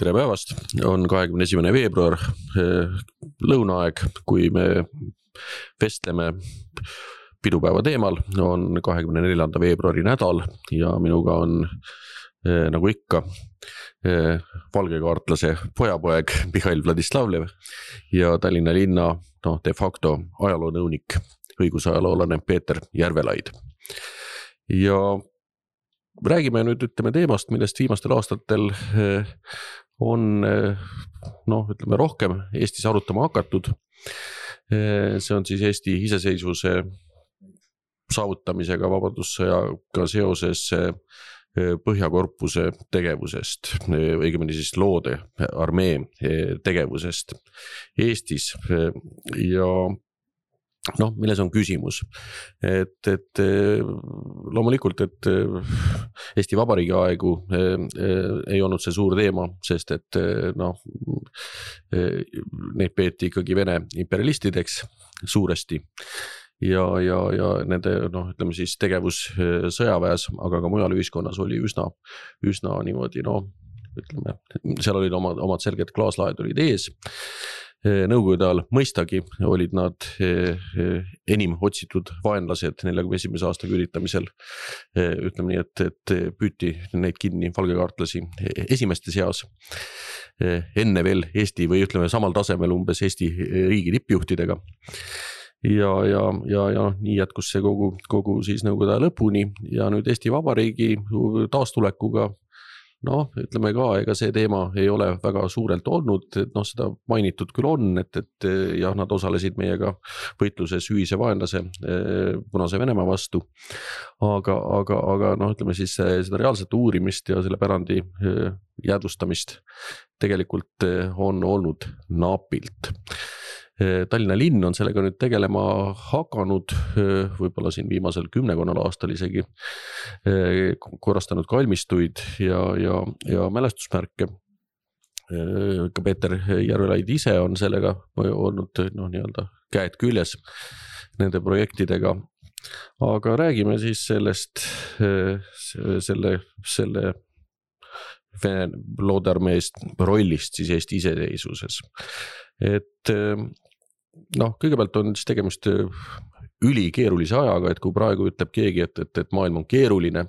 Tere päevast, on 21. veebruar, lõunaaeg, kui me vestleme pidupäeva teemal, on 24. veebruari nädal ja minuga on nagu ikka valgekaartlase pojapoeg Mihhail Vladislavlev ja Tallinna linna de facto ajaloonõunik, õigusajaloolane Peeter Järvelaid. Ja räägime nüüd teemast, millest viimastel aastatel on rohkem Eestis arutama hakatud. See on siis Eesti iseseisvuse saavutamisega vabadussõjaga seoses Põhjakorpuse tegevusest, õigemini siis loode armee tegevusest Eestis ja milles on küsimus, et loomulikult, et Eesti Vabariigi aegu ei olnud see suur teema, sest et neid peeti ikkagi Vene imperialistideks suuresti ja nende siis tegevus sõjaväes, aga ka mujal ühiskonnas oli üsna niimoodi, seal olid omad selged klaaslaed olid ees. Nõukogude ajal mõistagi olid nad enim otsitud vaenlased 41. aasta küüditamisel. Ütleme nii, et püüti neid kinni valgekaartlasi esimeste seas enne veel Eesti või samal tasemel umbes Eesti riigi tippjuhtidega. Ja nii jätkus see kogu siis nõukogude aja lõpuni ja nüüd Eesti Vabariigi taastulekuga ütleme ka, ega see teema ei ole väga suurelt olnud, et seda mainitud küll on, et nad osalesid meiega võitluses ühise vaenlase Punase Venemaa vastu, aga ütleme siis seda reaalset uurimist ja selle pärandi jäädvustamist tegelikult on olnud napilt. Tallinna linn on sellega nüüd tegelema hakanud, võib-olla siin viimasel 10 aastal isegi korrastanud kalmistuid ja mälestusmärke. Ka Peeter Järvelaid ise on sellega olnud käed küljes nende projektidega. Aga räägime siis sellest selle Vene loodearmeest rollist siis Eesti iseseisvuses. Et kõigepealt on siis tegemist ülikeerulise ajaga, et kui praegu ütleb keegi, et maailm on keeruline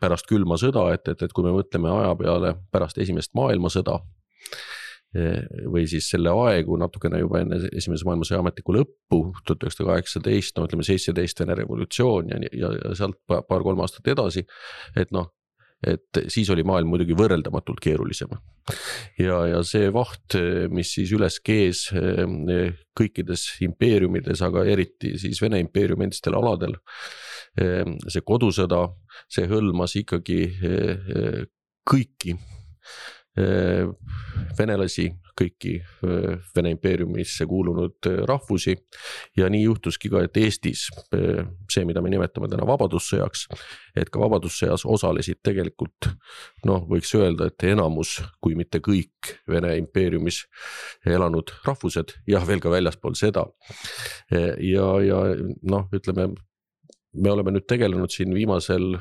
pärast külma sõda, et kui me mõtleme aja peale pärast esimest maailmasõda või siis selle aegu natukene juba enne esimese maailmasõja ametlikku lõppu 1918, 17 Vene revolutsioon ja sealt paar-kolm aastat edasi, et siis oli maailm muidugi võrreldamatult keerulisem. Ja see vaht, mis siis üles kees kõikides impeeriumides, aga eriti siis Vene impeeriumi endistel aladel, see kodusõda, see hõlmas ikkagi kõiki venelasi, kõiki Vene impeeriumisse kuulunud rahvusi ja nii juhtuski ka, et Eestis see, mida me nimetame täna vabadussõjaks, et ka vabadussõjas osalesid tegelikult, võiks öelda, et enamus, kui mitte kõik Vene impeeriumis elanud rahvused ja veel ka väljaspool seda. Ja ütleme, me oleme nüüd tegelenud siin viimasel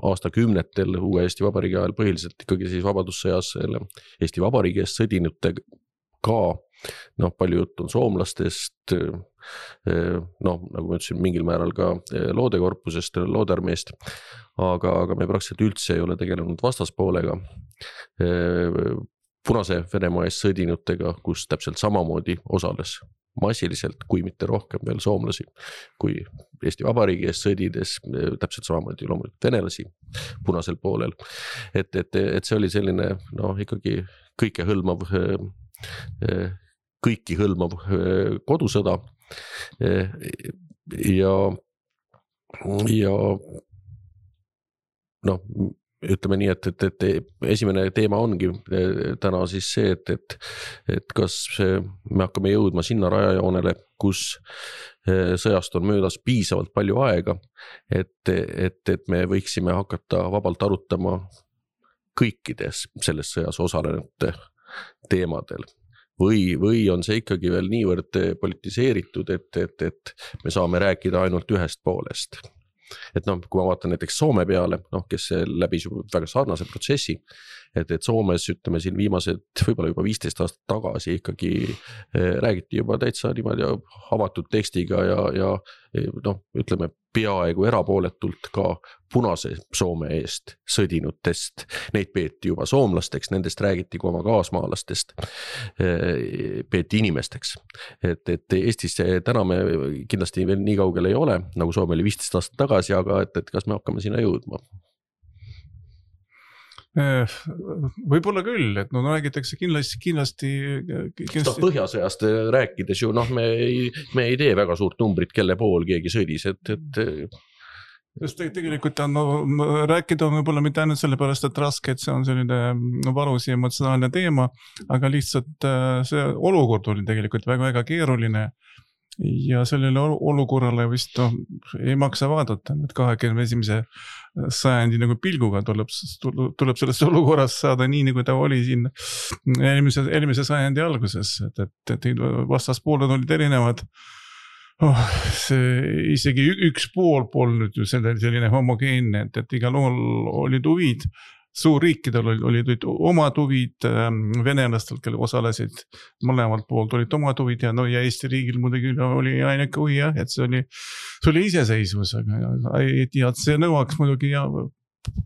aastakümnetel uue Eesti Vabariigi ajal põhiliselt ikkagi siis vabadussõjas Eesti Vabariigi eest sõdinutega ka, palju juttu on soomlastest, nagu ma ütlesin, mingil määral ka loodekorpusest, loodearmeest, aga me praktiliselt üldse ei ole tegelenud vastaspoolega, Punase Venemaa eest sõdinutega, kus täpselt samamoodi osales massiliselt, kui mitte rohkem veel soomlasi, kui Eesti Vabariigi eest sõdides, täpselt samamoodi loomulikult venelasi punasel poolel. Et see oli selline ikkagi kõiki hõlmav kodusõda ja ütleme nii, et esimene teema ongi täna siis see, et kas me hakkame jõudma sinna rajajoonele, kus sõjast on möödas piisavalt palju aega, et me võiksime hakata vabalt arutama kõikides selles sõjas osalenute teemadel. Või on see ikkagi veel niivõrd politiseeritud, et me saame rääkida ainult ühest poolest. et noh, kui ma vaatan näiteks Soome peale, noh, kes läbis väga sarnase protsessi, et Soomes ütleme siin viimased võib-olla juba 15 aastat tagasi ikkagi räägiti juba täitsa niimoodi avatud tekstiga ja noh, ütleme peaaegu erapooletult ka punase Soome eest sõdinutest. Neid peeti juba soomlasteks, nendest räägiti kui oma kaasmaalastest, peeti inimesteks. Et Eestis täna me kindlasti veel nii kaugel ei ole, nagu Soome oli 15 aastat tagasi, aga et kas me hakkame sinna jõudma? Võib-olla küll, et no räägitakse kindlasti Põhjasõjast rääkides ju, noh, me ei tee väga suurt numbrit, kelle pool keegi sõdis, Just tegelikult rääkida on võib-olla mitte ainult sellepärast, et raske, et see on selline valus ja emotsionaalne teema, aga lihtsalt see olukord oli tegelikult väga keeruline ja sellele olukorrale vist ei maksa vaadata, et 21. sajandi nagu pilguga tuleb sellest olukorrast saada nii, nagu ta oli siin eelmise sajandi alguses, et vastaspooled olid erinevad. See isegi üks pool polnud ju selline homogeenne, et igal olid huvid, suurriikidel olid omad huvid, venelastel, kelle osalesid mõlemalt poolt olid omad huvid ja Eesti riigil muidugi oli ainuke huvi, et see oli iseseisvus, ja see nõuaks muidugi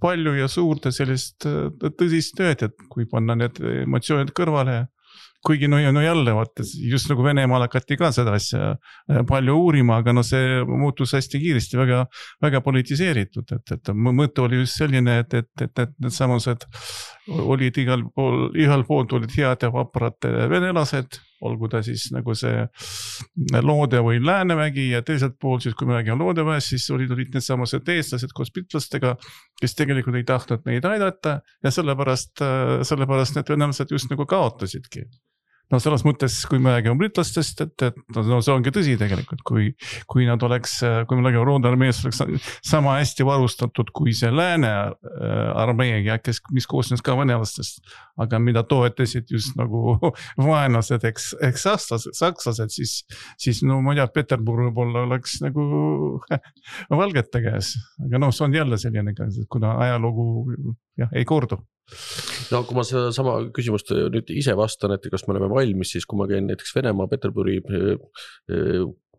palju ja suurt sellist tõsist tööd, et kui panna need emotsioonid kõrvale, kuigi jälle vaata, just nagu Venemaal hakati ka seda asja palju uurima, aga see muutus hästi kiiresti väga politiseeritud, et mõte oli just selline, et need samused olid igal poolt olid head ja vaprad venelased, olgu ta siis nagu see Loode või Läänemägi ja teiselt poolt siis, kui me räägime Loodeväest, siis olid need samused eestlased koos pitlastega, kes tegelikult ei tahtnud neid aidata ja sellepärast need venelased just nagu kaotasidki. No selles mõttes, kui me räägime britlastest, et see ongi tõsi tegelikult, kui nad oleks, kui me räägime Roode armees oleks sama hästi varustatud kui see Lääne armee, mis koosnes ka venelastest, aga mida toetasid just nagu vaenlased, eks sakslased, siis no ma ei tea, Peterburg võib-olla oleks nagu valgete käes, aga see on jälle selline, kuna ajalugu ei kordu. No kui ma seda sama küsimust nüüd ise vastan, et kas me oleme valmis, siis kui ma käin näiteks Venemaa Peterburi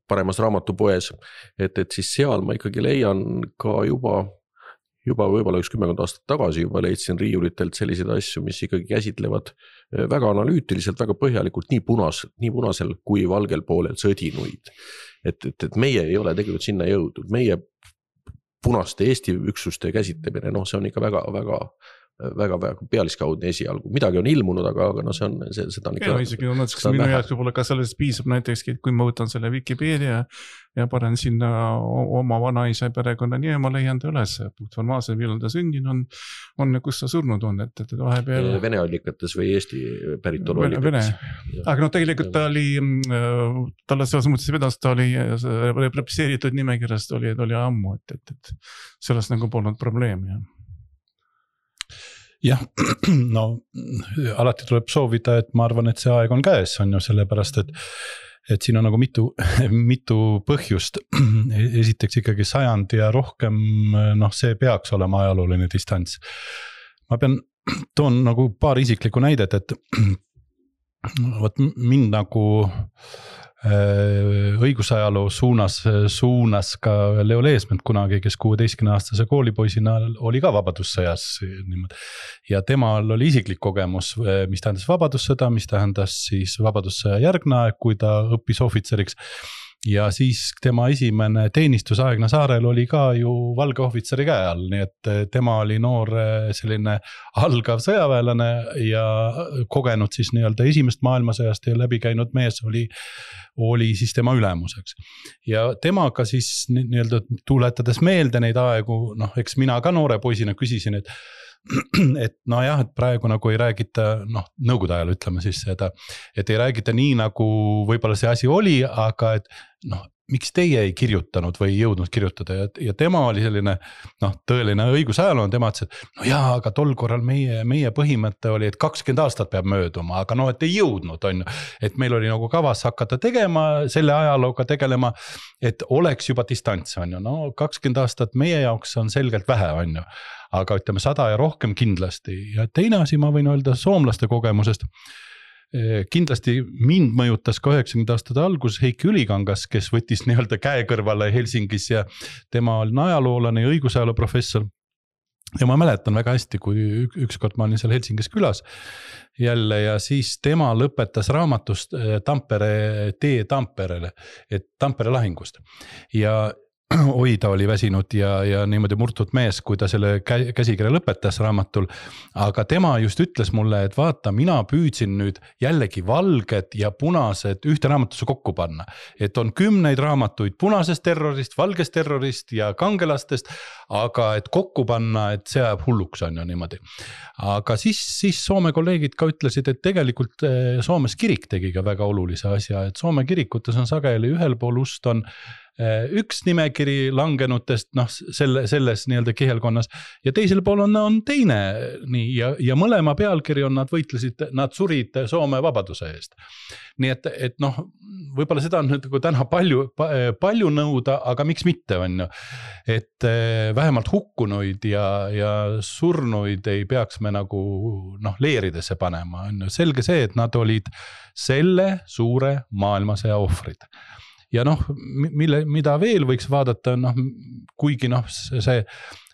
paremas raamatupoes, et siis seal ma ikkagi leian ka juba võib-olla 10 aastat tagasi juba leidsin riiulitelt selliseid asju, mis ikkagi käsitlevad väga analüütiliselt, väga põhjalikult nii punasel kui valgel poolel sõdinuid. Et meie ei ole tegelikult sinna jõudnud, meie punaste Eesti üksuste käsitlemine, see on ikka väga pealiskaudne esialgu. Midagi on ilmunud, aga see on seda on ikka... Isegi minu jaoks võib-olla ka sellest piisab näiteks, kui ma võtan selle Wikipedia ja panen sinna oma vanaisa perekonna nii, ma leian ta üles. Formaalselt, millal ta sündin on kus ta surnud on. Et vahepeal... Vene allikates või Eesti päritolu allikates. Aga tegelikult ta oli, talle selles mõttes vedas, ta oli represseeritud nimekirjast oli ammu, et sellest nagu polnud probleemi. Jah, alati tuleb soovida, et ma arvan, et see aeg on käes, on ju sellepärast, et siin on nagu mitu põhjust. Esiteks ikkagi 100 ja rohkem, see peaks olema ajalooline distants. Ma toon nagu paar isiklikku näidet, et mind nagu õigusajaloo suunas ka Leo Leesmet kunagi, kes 16-aastase koolipoisina oli ka vabadussõjas niimoodi. Ja temal oli isiklik kogemus, mis tähendas vabadussõda, mis tähendas siis vabadussõja järgne aeg, kui ta õppis ohvitseriks. Ja siis tema esimene teenistusaegna saarel oli ka ju valge ohvitseri käe all, nii et tema oli noor selline algav sõjaväelane ja kogenud siis nii-öelda esimest maailmasõjast ja läbi käinud mees oli siis tema ülemuseks. Ja temaga siis nii-öelda tuletades meelde neid aegu, eks mina ka noore poisina küsisin, et et praegu nagu ei räägita, nõukogude ajal ütleme siis seda, et ei räägita nii nagu võib-olla see asi oli, aga et miks teie ei kirjutanud või ei jõudnud kirjutada ja tema oli selline tõeline õigusajaloo, tema ütles, et no jaa, aga tol korral meie põhimõte oli, et 20 aastat peab mööduma, aga et ei jõudnud, on ju. Et meil oli nagu kavas hakata tegema, selle ajalooga tegelema, et oleks juba distants, on ju. No 20 aastat meie jaoks on selgelt vähe, on ju. Aga ütleme 100 ja rohkem kindlasti. Ja teine asi ma võin öelda soomlaste kogemusest. Kindlasti mind mõjutas ka 90 aastate alguses Heiki Ülikangas, kes võttis nii-öelda käe kõrvale Helsingis ja tema oli ajaloolane ja õigusajaloo professor. Ja ma mäletan väga hästi, kui ükskord ma olin seal Helsingis külas jälle ja siis tema lõpetas raamatust Tampere tee Tamperele, et Tampere lahingust. Ja ta oli väsinud ja niimoodi murtud mees, kui ta selle käsikirja lõpetas raamatul. Aga tema just ütles mulle, et vaata, mina püüdsin nüüd jällegi valged ja punased ühte raamatusse kokku panna. Et on 10 raamatuid punasest terrorist, valgest terrorist ja kangelastest, aga et kokku panna, et see ajab hulluks on ju niimoodi. Aga siis Soome kolleegid ka ütlesid, et tegelikult Soomes kirik tegi ka väga olulise asja, et Soome kirikutes on sageli ühel pool ust on üks nimekiri langenutest selles nii-öelda kihelkonnas ja teisel pool on teine nii, ja mõlema pealkiri on nad võitlesid, nad surid Soome vabaduse eest. Nii et võib-olla seda on nüüd täna palju nõuda, aga miks mitte on ju, et vähemalt hukkunuid ja surnuid ei peaks me nagu leeridesse panema, on ju selge see, et nad olid selle suure maailmasõja ohvrid. Ja mida veel võiks vaadata, kuigi see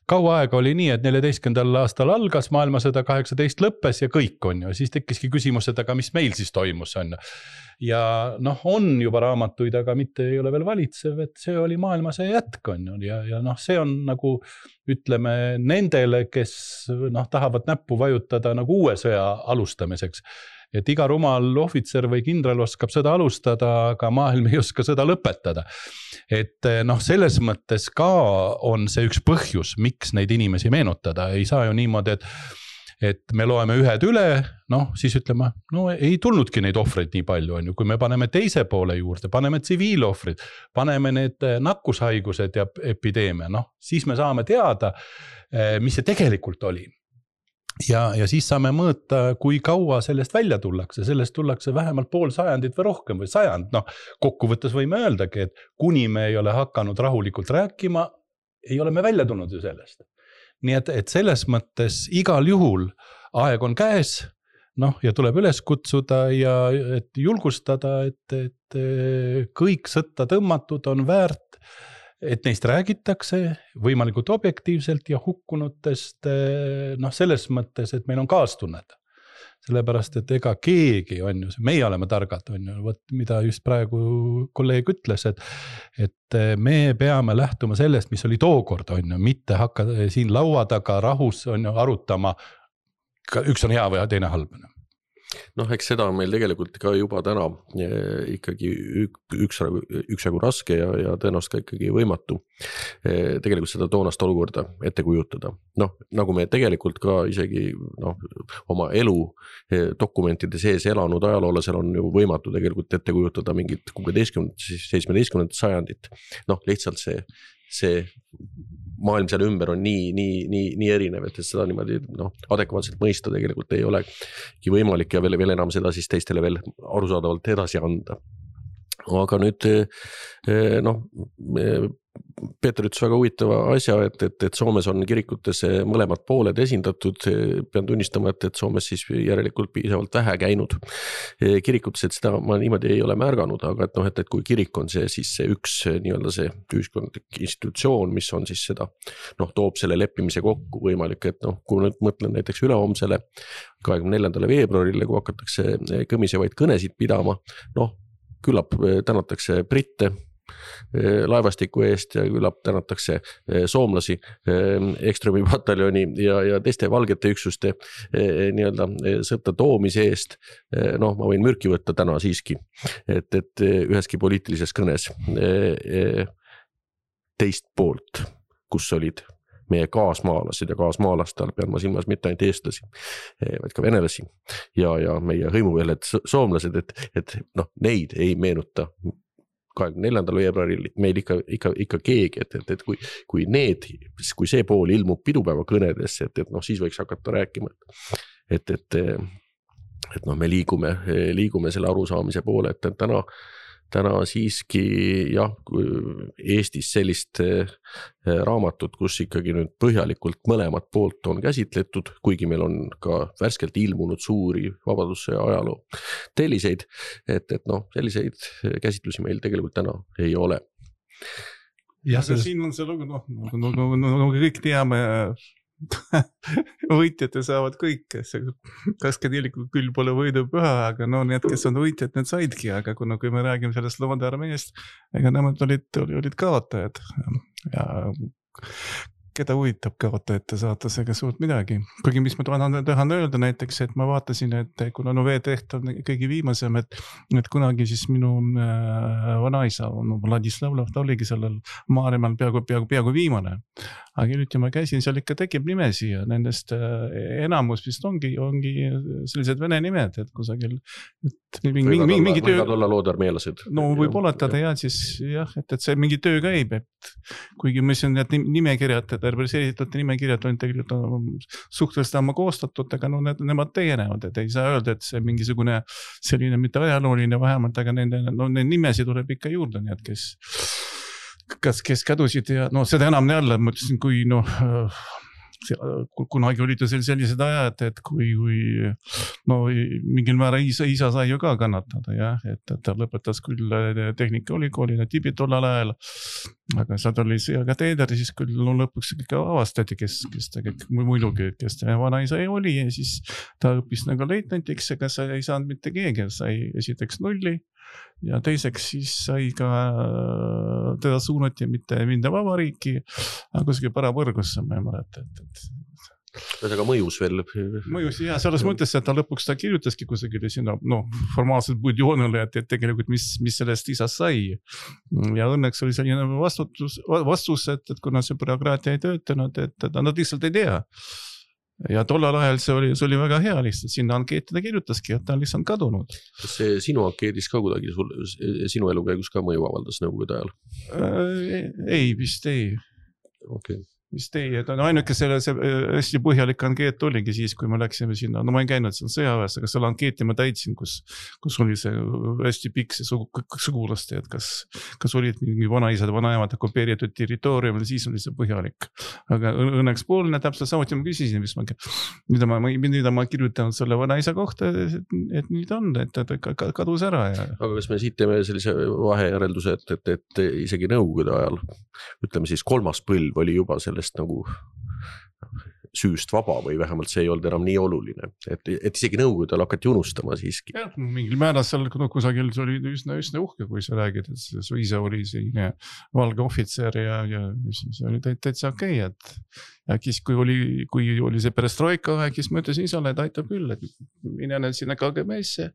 kaua aega oli nii, et 14. aastal algas maailmasõda, 18 lõppes ja kõik on ju, siis tekkiski küsimus, et aga mis meil siis toimus on ju. Ja on juba raamatuid, aga mitte ei ole veel valitsev, et see oli maailmasõja jätk on ju ja see on nagu ütleme nendele, kes tahavad näppu vajutada nagu uue sõja alustamiseks. Et iga rumal ohvitser või kindral oskab sõda alustada, aga maailm ei oska sõda lõpetada. Et selles mõttes ka on see üks põhjus, miks neid inimesi meenutada. Ei saa ju niimoodi, et me loeme ühed üle, siis ütleme, ei tulnudki neid ohvreid nii palju, on ju. Kui me paneme teise poole juurde, paneme tsiviilohvrid, paneme need nakkushaigused ja epideemia, siis me saame teada, mis see tegelikult oli. Ja siis saame mõõta, kui kaua sellest välja tullakse. Sellest tullakse vähemalt pool sajandit või rohkem või sajand. Kokkuvõttes võime öeldagi, et kuni me ei ole hakanud rahulikult rääkima, ei ole me välja tulnud ju sellest. Nii et selles mõttes igal juhul aeg on käes ja tuleb üles kutsuda ja et julgustada, et kõik sõtta tõmmatud on väärt, et neist räägitakse võimalikult objektiivselt ja hukkunutest selles mõttes, et meil on kaastunnet. Sellepärast, et ega keegi on ju, meie oleme targad on ju, mida just praegu kolleeg ütles, et me peame lähtuma sellest, mis oli tookord on ju, mitte hakka siin laua taga rahus on ju arutama, üks on hea või teine halb. Eks seda on meil tegelikult ka juba täna ikkagi üksjagu raske ja tõenäoliselt ka ikkagi võimatu tegelikult seda toonast olukorda ette kujutada. Nagu me tegelikult ka isegi oma elu dokumentide sees elanud ajaloolasel on ju võimatu tegelikult ette kujutada mingit 16-17 sajandit. Lihtsalt see maailm seal ümber on nii erinev, et seda niimoodi adekvaatselt mõista tegelikult ei olegi võimalik ja veel enam seda siis teistele veel arusaadavalt edasi anda. Aga nüüd Peeter ütles väga huvitava asja, et Soomes on kirikutes mõlemad pooled esindatud. Pean tunnistama, et Soomes siis järelikult piisavalt vähe käinud kirikutes, et seda ma niimoodi ei ole märganud, aga et kui kirik on siis see üks nii-öelda see ühiskondlik institutsioon, mis on siis seda, toob selle leppimise kokku võimalik, et kui nüüd mõtlen näiteks ülehomsele 24. veebruarile, kui hakatakse kõmisevaid kõnesid pidama, küllap tänatakse britte laevastiku eest ja küllap tänatakse soomlasi Ekströmi pataljoni ja teiste valgete üksuste nii-öelda sõtta toomise eest. Ma võin mürki võtta täna siiski, et üheski poliitilises kõnes teist poolt, kus olid meie kaasmaalased ja kaasmaalastel pean ma silmas mitte ainult eestlasi, vaid ka venelasi ja meie hõimuveeled soomlased, et neid ei meenuta 24. veebruaril meil ikka keegi, et kui see pool ilmub pidupäeva kõnedesse, et noh, siis võiks hakata rääkima, et noh, me liigume selle arusaamise poole, et täna siiski jah, Eestis sellist raamatut, kus ikkagi nüüd põhjalikult mõlemat poolt on käsitletud, kuigi meil on ka värskelt ilmunud suuri vabadussõja ajaloo telliseid, et noh, selliseid käsitlusi meil tegelikult täna ei ole. Ja siin on see lugu, no kõik teame, võitjate saavad kõik, kaskadilikult küll pole võidu püha, aga no need, kes on võitjad, need saidki, aga kui me räägime sellest Lomade armeest, ega nemad olid kaotajad ja keda huvitab kaotajate saatusega suurt midagi. Kuigi mis ma tahan öelda näiteks, et ma vaatasin, et kuna veeteht on kõige viimasem, et kunagi siis minu vanaisa, Vladislavlov, ta oligi sellel Maaremaal peaaegu viimane. Aga nüüd ma käisin, seal ikka tekib nimesi ja nendest enamus vist ongi sellised vene nimed, et kusagil mingi töö... Võivad olla loodarmeelased. No võib-olla siis jah, et see mingi töö käib, et kuigi ma ütlesin, et nimekirjad, represseeritud nimekirjad on tegelikult suhteliselt ammu koostatud, aga no nemad tegenevad, et ei saa öelda, et see mingisugune selline mitte ajalooline vähemalt, aga nende nimesi tuleb ikka juurde, nii et kes kadusid ja no seda enam jälle, ma ütlesin, kui kunagi olid ju sellised ajad, et kui no mingil määra isa sai ju ka kannatada, jah, et ta lõpetas küll tehnikaülikooli Tibet tollal ajal, aga sealt oli sõjaga teeder, siis küll lõpuks ikka avastati, kes muidugi, kes ta vanaisa oli ja siis ta õppis nagu leitnantiks, aga sa ei saanud mitte keegi, sai esiteks nulli ja teiseks siis sai ka teda suunati mitte vabariiki, aga kuskil Parapõrgusse, ma ei mäleta, Aga mõjus veel. Mõjus, jah, selles mõttes, et ta lõpuks kirjutaski kusagile sinna, formaalselt budjoonile, et tegelikult mis sellest isast sai. Ja õnneks oli selline vastus, et kuna see bürokraatia ei töötanud, et nad lihtsalt ei tea. Ja tollal ajal see oli väga hea lihtsalt, sinna ankeetida kirjutaski, et ta on lihtsalt kadunud. Kas see sinu ankeedis ka kuidagi sinu elu käigus ka mõju avaldas nõukogude ajal? Ei, vist ei. Okay. Vist ei, et ainuke see hästi põhjalik ankeet oligi siis, kui me läksime sinna, no ma ei käinud seal sõjaväes, aga selle ankeeti ma täitsin, kus oli see hästi pikk see sugulaste, et kas olid mingi vanaisad, vanaemad okupeeritud territooriumil, siis oli see põhjalik. Aga õnneks poolne täpselt samuti ma küsisin, mida ma kirjutanud selle vanaisa kohta, et nüüd on, et ta kadus ära. Ja... Aga kas me siit teeme sellise vahejärelduse, et isegi nõukogude ajal, ütleme siis 3. põlv oli juba sellest nagu süüst vaba või vähemalt see ei olnud enam nii oluline, et isegi nõukogudel hakati unustama siiski. Ja, mingil määral seal kusagil see oli üsna uhke, kui sa räägid, et su isa oli selline valge ohvitser ja see oli täitsa okei, et kui oli see perestroika aeg, siis ma ütlesin isale, et aitab küll, et mine sinna KGB-sse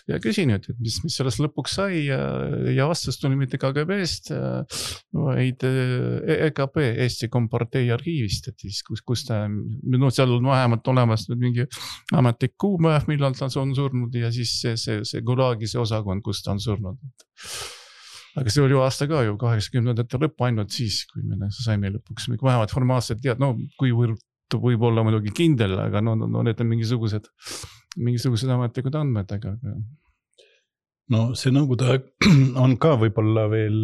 ja küsin, et mis sellest lõpuks sai ja vastus tuli mitte KGB-st, vaid EKP, Eesti Kompartei arhiivist, et siis kus ta, seal on vähemalt olemas mingi ametlik kuupäev, millal ta on surnud ja siis see Gulagi see osakond, kus ta on surnud. Aga see oli ju aasta ka ju 80ndate lõpp ainult siis, kui me saime lõpuks vähemalt formaalselt tead, kuivõrd võib olla muidugi kindel, aga need on mingisugused ametlikud andmed, aga... No see nõukogude aeg on ka võib-olla veel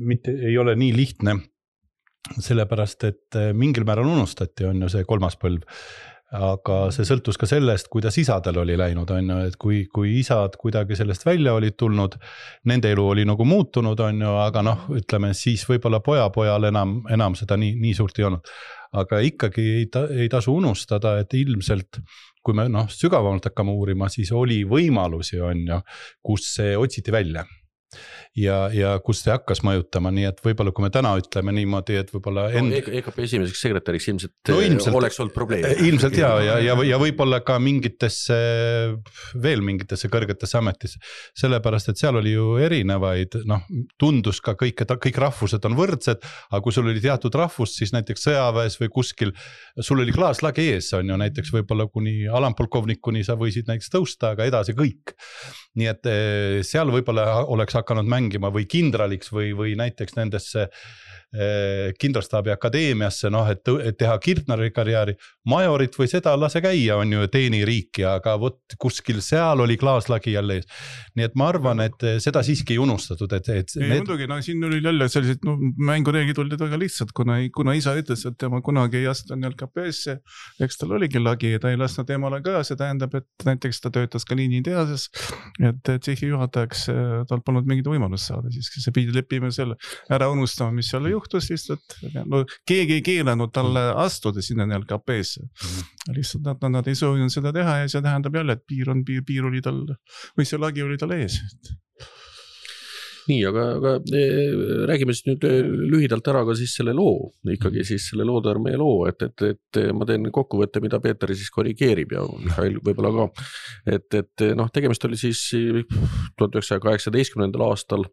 mitte, ei ole nii lihtne, sellepärast, et mingil määral unustati on ju see 3. põlv, aga see sõltus ka sellest, kuidas isadel oli läinud, on ju, et kui isad kuidagi sellest välja olid tulnud, nende elu oli nagu muutunud, on ju, aga ütleme, siis võib-olla pojal enam seda nii suurt ei olnud. Aga ikkagi ei tasu unustada, et ilmselt kui me sügavamalt hakkame uurima, siis oli võimalusi, on ju, kus see otsiti välja. Ja kus see hakkas mõjutama, nii et võib-olla kui me täna ütleme niimoodi, et võib-olla EKP esimeseks sekretäriks ilmselt oleks olnud probleem. Ilmselt ja võib-olla ka veel mingitesse kõrgetesse ametisse, sellepärast, et seal oli ju erinevaid, tundus ka kõik rahvused on võrdsed, aga kui sul oli teatud rahvus, siis näiteks sõjaväes või kuskil, sul oli klaaslagi ees, on ju näiteks võib-olla kuni alampolkovnikuni sa võisid näiteks tõusta, aga edasi kõik. Nii et seal võib-olla oleks hakanud mängima rongima või kindraliks või näiteks nendesse kindralstaabi akadeemiasse, noh, et teha kirtnari karjääri, majorit või seda lase käia, on ju teeni riiki, aga vot kuskil seal oli klaaslagi jälle ees. Nii et ma arvan, et seda siiski ei unustatud, muidugi, no siin oli jälle sellised mängureeglid olid väga lihtsad, kuna isa ütles, et tema kunagi ei astu LKP-sse, eks tal oligi lagi ja ta ei lasknud temale ka, see tähendab, et näiteks ta töötas ka liiniteases, et tsehhi juhatajaks tal polnud mingit võimalust saada, siis see pidi leppima selle ära unustama, mis seal juhtus lihtsalt, no keegi ei keelanud talle astuda sinna LKP-sse. Lihtsalt nad ei soovinud seda teha ja see tähendab jälle, et piir oli tal, või see lagi oli tal ees. Nii, aga räägime siis nüüd lühidalt ära ka siis selle loo, ikkagi siis selle Loodearmee loo, et ma teen kokkuvõtte, mida Peeter siis korrigeerib ja Mihhail võib-olla ka, et noh, tegemist oli siis 1918. aastal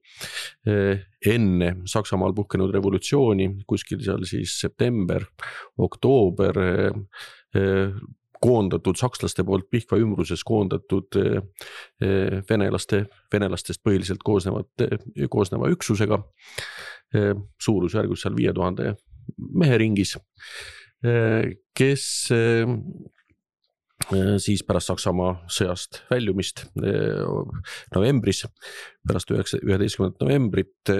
enne Saksamaal puhkenud revolutsiooni, kuskil seal siis september, oktoober, koondatud sakslaste poolt Pihkva ümbruses koondatud venelastest põhiliselt koosneva üksusega, suurusjärgus seal 5000 mehe ringis, kes siis pärast Saksamaa sõjast väljumist novembris, pärast 11. novembrit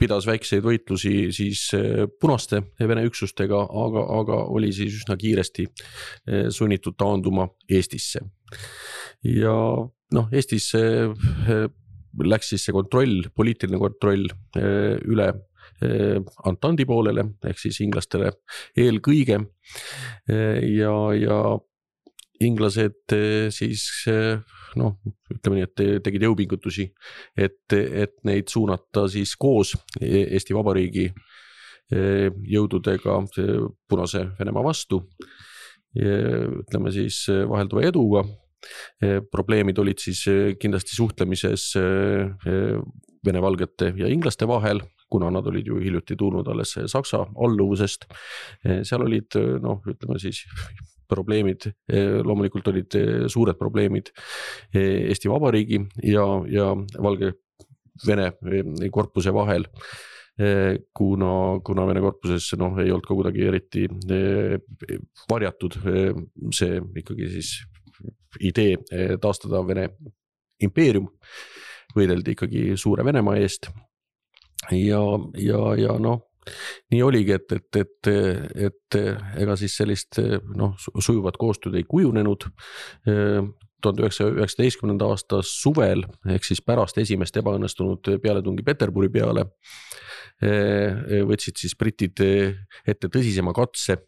pidas väikseid võitlusi siis punaste Vene üksustega, aga oli siis üsna kiiresti sunnitud taanduma Eestisse. Ja noh, Eestis läks siis see kontroll, poliitiline kontroll üle Antandi poolele, ehk siis inglastele eelkõige ja inglased siis noh, ütleme nii, et tegid jõupingutusi, et neid suunata siis koos Eesti Vabariigi jõududega Punase Venemaa vastu, ütleme siis vahelduva eduga. Probleemid olid siis kindlasti suhtlemises vene-valgete ja inglaste vahel, kuna nad olid ju hiljuti tulnud alles Saksa alluvusest. Seal olid, noh, ütleme siis probleemid, loomulikult olid suured probleemid Eesti Vabariigi ja Valgevene korpuse vahel, kuna Vene korpuses noh, ei olnud ka kuidagi eriti varjatud see ikkagi siis idee taastada Vene impeerium, võideldi ikkagi suure Venemaa eest ja noh, nii oligi, et ega siis sellist noh, sujuvat koostööd ei kujunenud. 1919. aasta suvel, ehk siis pärast esimest ebaõnnestunud pealetungi Peterburi peale, võtsid siis britid ette tõsisema katse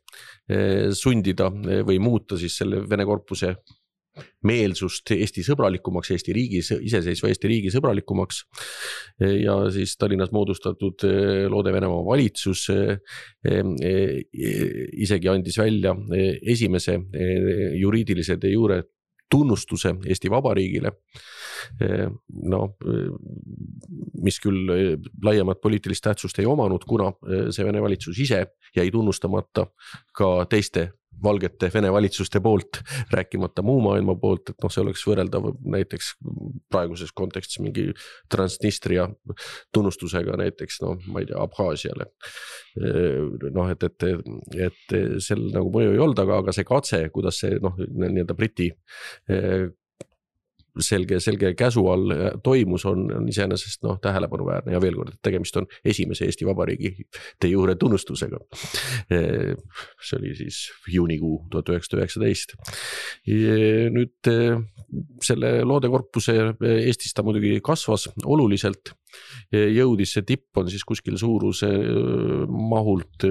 sundida või muuta siis selle Vene korpuse meelsust Eesti sõbralikumaks, iseseisva Eesti riigi sõbralikumaks ja siis Tallinnas moodustatud Loode-Venemaa valitsus isegi andis välja esimese juriidilise de jure tunnustuse Eesti Vabariigile, no, mis küll laiemat poliitilist tähtsust ei omanud, kuna see Vene valitsus ise jäi tunnustamata ka teiste valgete Vene valitsuste poolt, rääkimata muu maailma poolt, et noh, see oleks võrreldav näiteks praeguses kontekstis mingi Transnistria tunnustusega näiteks, noh, ma ei tea, Abhaasiale. Noh, et sel nagu mõju ei olnud, aga see katse, kuidas see noh, nii-öelda Briti selge käsu all toimus, on iseenesest noh, tähelepanuväärne ja veel kord, et tegemist on esimese Eesti Vabariigi de jure tunnustusega. See oli siis juunikuu 1919. Nüüd selle Loodekorpuse Eestis ta muidugi kasvas oluliselt, jõudis see tipp on siis kuskil suuruse mahult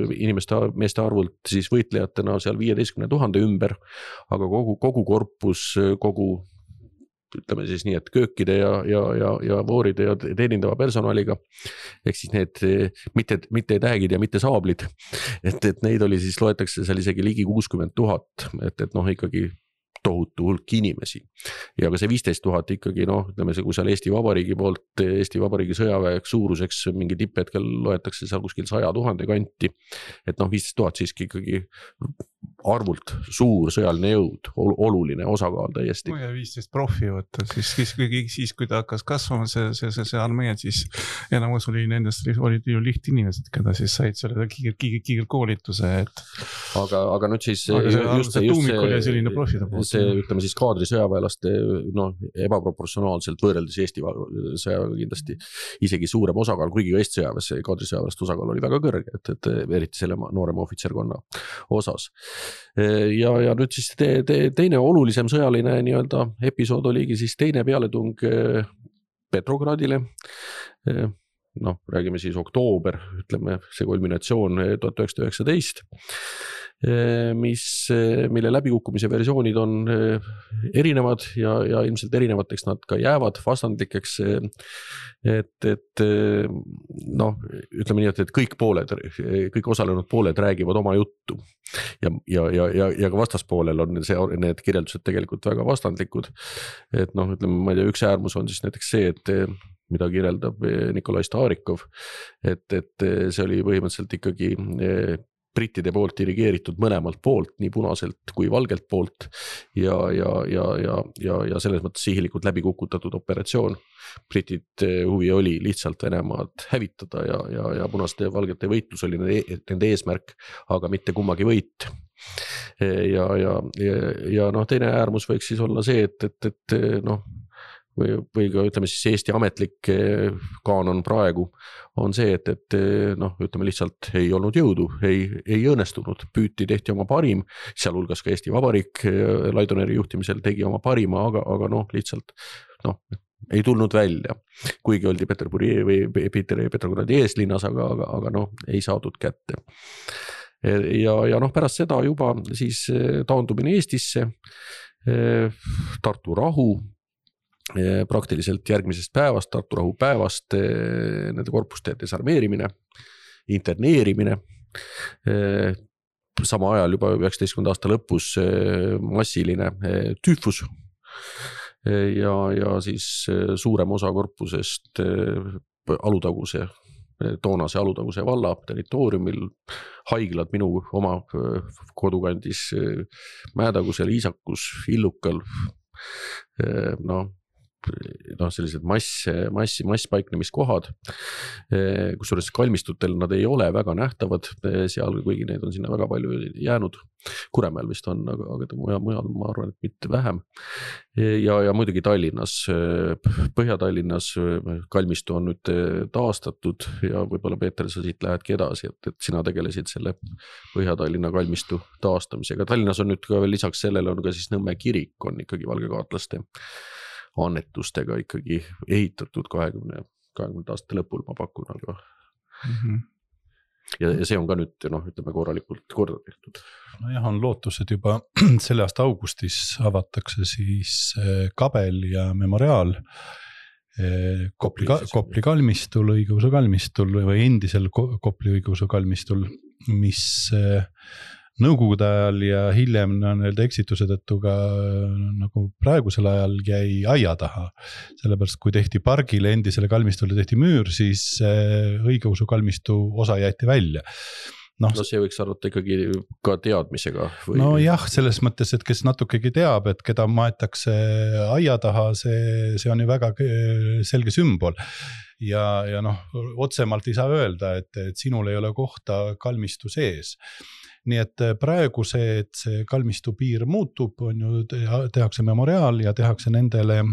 meeste arvult siis võitlejatena seal 15 000 ümber, aga kogu korpus, ütleme siis nii, et köökide ja vooride ja teenindava personaliga, ehk siis need mitte täägid ja mitte saablid, et neid oli siis, loetakse seal isegi ligi 60 000, et noh, ikkagi tohutu hulk inimesi. Ja ka see 15 000 ikkagi, noh, ütleme see, kui seal Eesti Vabariigi poolt, Eesti Vabariigi sõjaväeks suuruseks mingi tipphetkel loetakse seal kuskil 100 000 kanti, et noh, 15 000 siiski ikkagi arvult suur sõjaline jõud, oluline osakaal täiesti. Kui 15 profi võtta, siis kui ta hakkas kasvama see armee, siis enamus oli nendest olid ju lihtinimesed, keda siis said selle kiirkoolituse, et aga nüüd siis see tuumik oli selline profide poolt. See ütleme siis kaadri sõjaväelaste ebaproportsionaalselt võrreldes Eesti sõjaväega kindlasti isegi suurem osakaal, kuigi Eesti sõjaväes kaadri sõjaväelaste osakaal oli väga kõrge, et eriti selle noorema ohvitserkonna osas. Ja nüüd siis teine olulisem sõjaline nii-öelda episood oligi siis teine pealetung Petrogradile. Räägime siis oktoober, ütleme see kulminatsioon 1919, mille läbikukkumise versioonid on erinevad ja ilmselt erinevateks nad ka jäävad vastandlikeks, et ütleme nii, et kõik osalenud pooled räägivad oma juttu ja ka vastaspoolel on need kirjeldused tegelikult väga vastandlikud, et ütleme, ma ei tea, üks äärmus on siis näiteks see, et mida kirjeldab Nikolai Starikov, et see oli põhimõtteliselt ikkagi brittide poolt dirigeeritud mõlemalt poolt, nii punaselt kui valgelt poolt ja selles mõttes sihilikult läbi kukutatud operatsioon. Britid huvi oli lihtsalt Venemaad hävitada ja punaste ja valgete võitlus oli nende eesmärk, aga mitte kummagi võit. Ja teine äärmus võiks siis olla see, et või ka ütleme siis Eesti ametlik kaanon praegu on see, et ütleme lihtsalt ei olnud jõudu, ei õnnestunud, tehti oma parim, sealhulgas ka Eesti Vabariik Laidoneri juhtimisel tegi oma parima, aga lihtsalt ei tulnud välja, kuigi oldi Petrogradi eeslinnas, aga ei saadud kätte. Ja pärast seda juba siis taandumine Eestisse, Tartu rahu, praktiliselt järgmisest päevast, Tartu rahu päevast, nende korpuste desarmeerimine, interneerimine, sama ajal juba 19. aasta lõpus massiline tüüfus ja siis suurem osa korpusest toonase Alutaguse valla territooriumil, haiglad minu oma kodukandis Mäetagusel, Iisakus, Illukal, sellised masspaiknemiskohad, kusjuures kalmistutel nad ei ole väga nähtavad seal, kuigi neid on sinna väga palju jäänud. Kuremäel vist on, aga mujal ma arvan, et mitte vähem. Ja muidugi Tallinnas, Põhja-Tallinnas kalmistu on nüüd taastatud ja võib-olla Peeter, sa siit lähedki edasi, et sina tegelesid selle Põhja-Tallinna kalmistu taastamisega. Tallinnas on nüüd ka veel lisaks sellele on ka siis Nõmme kirik on ikkagi valgekaatlaste annetustega ikkagi ehitatud 20 aastate lõpul, ma pakun, aga ja see on ka nüüd, ütleme korralikult korda tehtud. On lootus, et juba selle aasta augustis avatakse siis Kabel ja Memoriaal Kopli kalmistul, õigeusu kalmistul või endisel Kopli õigeusu kalmistul, mis Nõukogude ajal ja hiljem eksitused, et ka nagu praegusel ajal jäi aia taha. Sellepärast, kui tehti pargile endisele kalmistule tehti müür, siis õigeusu kalmistu osa jäeti välja. See võiks arvata ikkagi ka teadmisega. Jah, selles mõttes, et kes natukegi teab, et keda maetakse aia taha, see on ju väga selge sümbol. Ja otsemalt ei saa öelda, et sinul ei ole kohta kalmistu sees. Nii et praegu et see kalmistu piir muutub, on ju, tehakse memoriaal ja tehakse nendele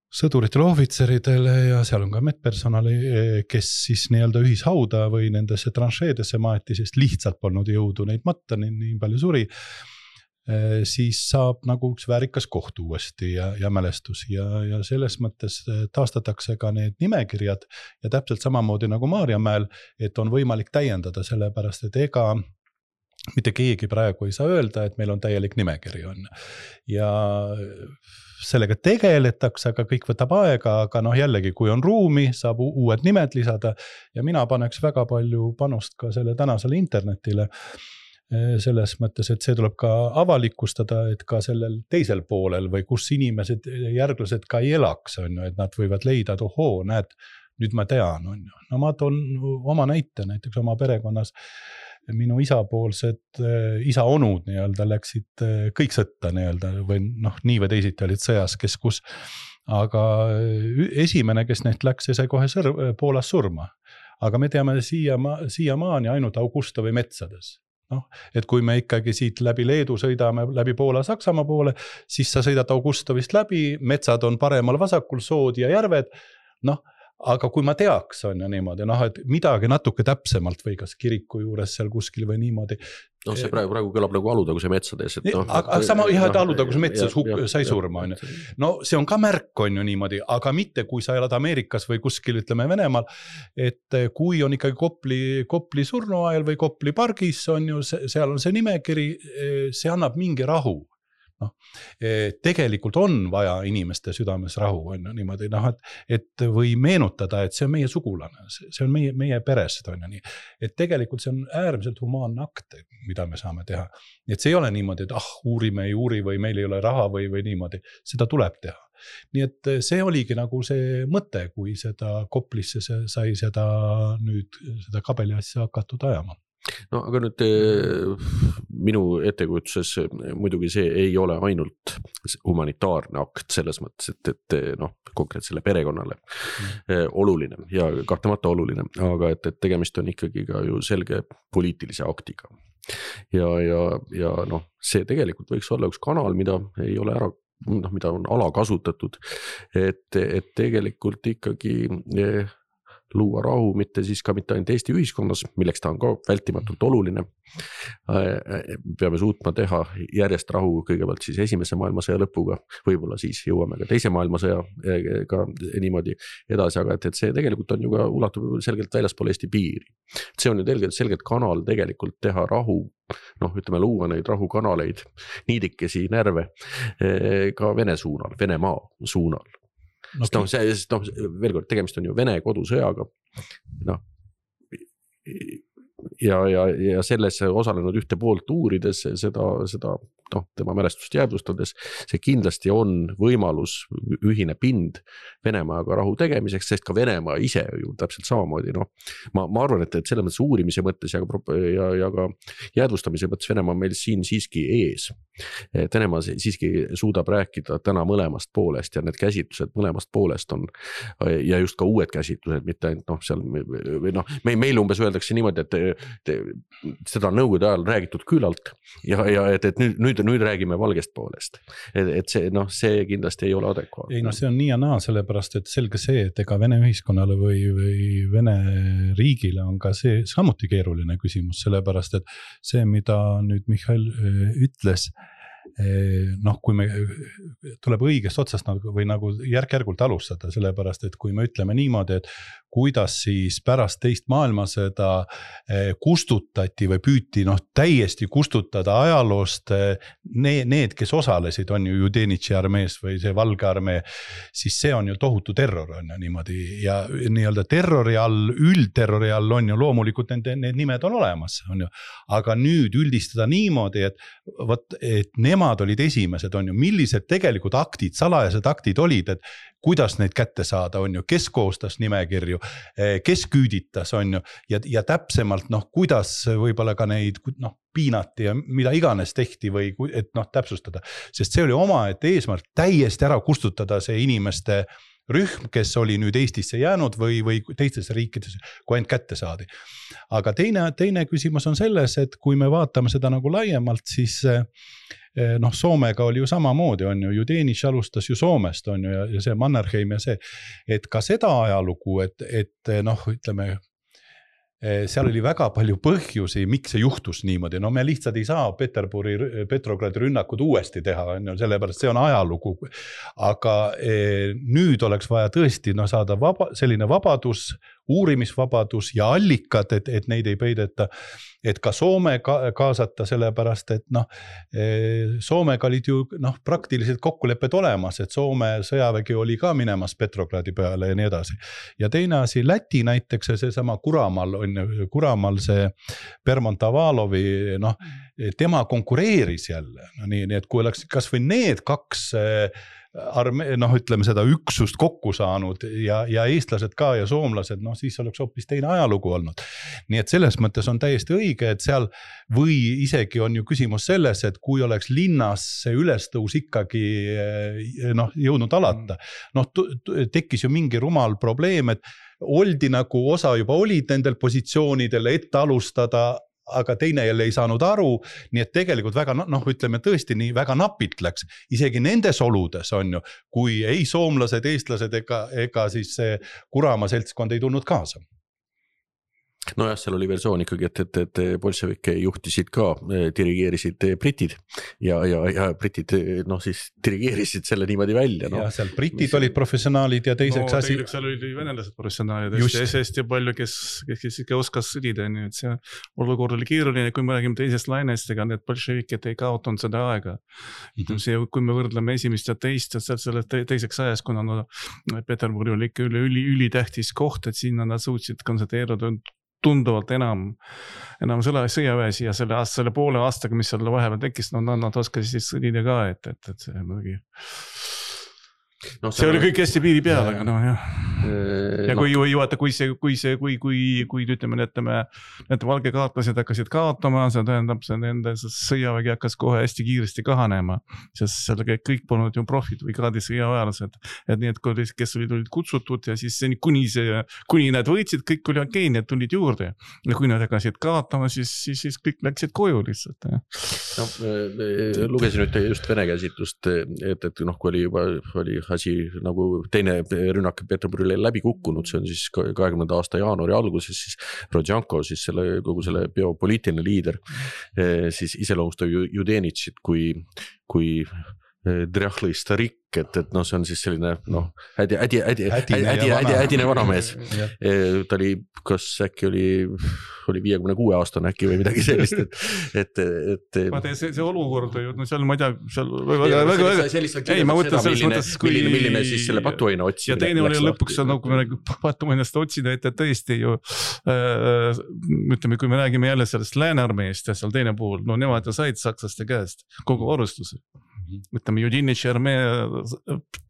sõduritele, ohvitseridele ja seal on ka medpersonali, kes siis nii-öelda ühishauda või nendesse tranšeedesse maeti, sest lihtsalt polnud jõudu neid matta, nii palju suri, siis saab nagu üks väärikas koht uuesti ja mälestus ja selles mõttes taastatakse ka need nimekirjad ja täpselt samamoodi nagu Maarjamäel, et on võimalik täiendada sellepärast, et ega mitte keegi praegu ei saa öelda, et meil on täielik nimekiri on. Ja sellega tegeletakse, aga kõik võtab aega, aga jällegi, kui on ruumi, saab uued nimed lisada ja mina paneks väga palju panust ka selle tänasele internetile, selles mõttes, et see tuleb ka avalikustada, et ka sellel teisel poolel või kus inimesed, järglased ka ei elaks, on ju, et nad võivad leida, et näed, nüüd ma tean, on ju. Ma toon oma näite, näiteks oma perekonnas minu isa onud nii-öelda läksid kõik sõtta nii-öelda või noh, nii või teisiti olid sõjas, kes kus. Aga esimene, kes neist läks, sai kohe Poolas surma. Aga me teame siiamaani ainult Augustovi metsades. No, et kui me ikkagi siit läbi Leedu sõidame läbi Poola Saksamaa poole, siis sa sõidad Augustovist läbi, metsad on paremal vasakul, sood ja järved, noh, aga kui ma teaks, on ju niimoodi, noh, et midagi natuke täpsemalt või kas kiriku juures seal kuskil või niimoodi. No see praegu kõlab nagu Alutaguse metsades. Aga sama jah, et Alutaguse metsas sai surma, on ju. No see on ka märk, on ju niimoodi, aga mitte kui sa elad Ameerikas või kuskil, ütleme Venemaal, et kui on ikkagi Kopli surnuajal või Kopli pargis, on ju, seal on see nimekiri, see annab mingi rahu. No, tegelikult on vaja inimeste südames rahu, on ju niimoodi, noh, et või meenutada, et see on meie sugulane, see on meie perest, on ju nii, et tegelikult see on äärmiselt humaanne akt, mida me saame teha, et see ei ole niimoodi, et uurime ei uuri või meil ei ole raha või niimoodi, seda tuleb teha. Nii et see oligi nagu see mõte, kui seda Koplisse sai seda kabeli asja hakatud ajama. No aga nüüd minu ettekujutuses muidugi see ei ole ainult humanitaarne akt selles mõttes, et noh, konkreetsele perekonnale oluline ja kahtlemata oluline, aga et tegemist on ikkagi ka ju selge poliitilise aktiga. Ja noh, see tegelikult võiks olla üks kanal, mida ei ole mida on alakasutatud, et tegelikult ikkagi luua rahu, mitte ainult Eesti ühiskonnas, milleks ta on ka vältimatult oluline. Peame suutma teha järjest rahu kõigepealt siis esimese maailmasõja lõpuga, võib-olla siis jõuame ka teise maailmasõjaga niimoodi edasi, aga et see tegelikult on ju ka ulatub selgelt väljaspool Eesti piiri. See on ju selgelt kanal tegelikult teha rahu, noh, ütleme luua neid rahukanaleid, niidikesi närve ka Vene suunal, Venemaa suunal. Veel kord, tegemist on ju Vene kodusõjaga, noh, ja selles osalenud ühte poolt uurides seda tema mälestust jäädvustades, see kindlasti on võimalus ühine pind Venemaaga rahu tegemiseks, sest ka Venemaa ise ju täpselt samamoodi, noh, ma arvan, et selles mõttes uurimise mõttes ja ka jäädvustamise mõttes Venemaa meil siin siiski ees. Et Venemaa siiski suudab rääkida täna mõlemast poolest ja need käsitlused mõlemast poolest on ja just ka uued käsitlused, mitte ainult seal meil umbes öeldakse niimoodi, et seda nõukogude ajal räägitud küllalt ja et nüüd räägime valgest poolest. Et see kindlasti ei ole adekvaatne. Ei, see on nii ja naa, sellepärast, et selge see, et ega Vene ühiskonnale või Vene riigile on ka see samuti keeruline küsimus, sellepärast, et see, mida nüüd Mihhail ütles, noh, kui me tuleb õigest otsast või nagu järk-järgult alustada, sellepärast, et kui me ütleme niimoodi, et kuidas siis pärast teist maailmasõda kustutati või püüti täiesti kustutada ajaloost need, kes osalesid, on ju Judenitši armees või see Valge armee, siis see on ju tohutu terror, on ju niimoodi ja nii-öelda terrori all, üldterrori all on ju loomulikult need nimed on olemas, on ju, aga nüüd üldistada niimoodi, et nemad olid esimesed, on ju, millised tegelikult aktid, salajased aktid olid, et kuidas neid kätte saada, on ju, kes koostas nimekirju, kes küüditas, on ju, ja täpsemalt, kuidas võib-olla ka neid, piinati ja mida iganes tehti või et täpsustada, sest see oli omaette eesmärk täiesti ära kustutada see inimeste rühm, kes oli nüüd Eestisse jäänud või teistesse riikides, kui ainult kätte saadi. Aga teine küsimus on selles, et kui me vaatame seda nagu laiemalt, siis Soomega oli ju samamoodi, on ju, Judenitš alustas ju Soomest, on ju, ja see Mannerheim ja see, et ka seda ajalugu, et ütleme, seal oli väga palju põhjusi, miks see juhtus niimoodi, me lihtsalt ei saa Petrogradi rünnakud uuesti teha, sellepärast see on ajalugu, aga nüüd oleks vaja tõesti saada selline vabadus, uurimisvabadus ja allikad, et neid ei peideta, et ka Soome kaasata sellepärast, et Soomega olid ju praktiliselt kokkulepped olemas, et Soome sõjavägi oli ka minemas Petrogradi peale ja nii edasi. Ja teine asi, Läti näiteks see sama Kuramal see Bermontavalovi, tema konkureeris jälle, nii et kui oleks kas või need kaks ütleme seda üksust kokku saanud ja eestlased ka ja soomlased, siis oleks hoopis teine ajalugu olnud. Nii et selles mõttes on täiesti õige, et seal või isegi on ju küsimus selles, et kui oleks linnas see ülestõus ikkagi jõudnud alata, tekkis ju mingi rumal probleem, et oldi nagu osa juba olid nendel positsioonidel ette alustada, aga teine jälle ei saanud aru, nii et tegelikult väga, ütleme tõesti nii väga napilt läks, isegi nendes oludes on ju, kui ei soomlased, eestlased ega siis see Kuramaa seltskond ei tulnud kaasa. Nojah, seal oli versioon ikkagi, et bolševikke juhtisid ka, dirigeerisid britid ja britid siis dirigeerisid selle niimoodi välja. Ja seal britid olid professionaalid ja teiseks asi. Seal oli venelased professionaalid, hästi palju, kes ikka oskas sõdida, nii et see olukord oli keeruline, kui me räägime teisest lainest, ega need bolševikid ei kaotanud seda aega. Kui me võrdleme esimest ja teist, selle teiseks ajas, kuna Peterburi oli ikka ülitähtis koht, et sinna nad suutsid konsenteeruda tunduvalt enam sõjaväes ja selle poole aastaga, mis seal vahepeal tekkis, nad oskasid siis sõdida ka, et see muidugi. See oli kõik hästi piiri peal, aga jah. Ja kui ütleme, need valgekaartlased hakkasid kaotama, see tähendab, see nende sõjavägi hakkas kohe hästi kiiresti kahanema, sest seal kõik polnud ju profid või kraadi sõjaväelased, et need, kes olid kutsutud ja siis kuni nad võitsid, kõik oli okei, need tulid juurde ja kui nad hakkasid kaotama, siis kõik läksid koju lihtsalt. Lugesin nüüd just vene käsitlust, et kui oli asi nagu teine rünnak Peterburile läbi kukkunud, see on siis 20. aasta jaanuari alguses, siis Rodjanko, siis kogu selle biopoliitiline liider, siis iseloomustab Judenitšit kui drjahli starik, et see on siis selline hädine vanamees. Ta oli, kas äkki oli 56 aastane äkki või midagi sellist, et see olukord, seal ma ei tea, seal ei, ma mõtlen selles mõttes, milline siis selle patuaina otsimine. Ja teine oli lõpuks, kui me patuainast otsida, et tõesti ju, ütleme, kui me räägime jälle sellest läänearmeest ja seal teine puhul, nemad said sakslaste käest kogu varustuse. Ütleme, Judinitši armee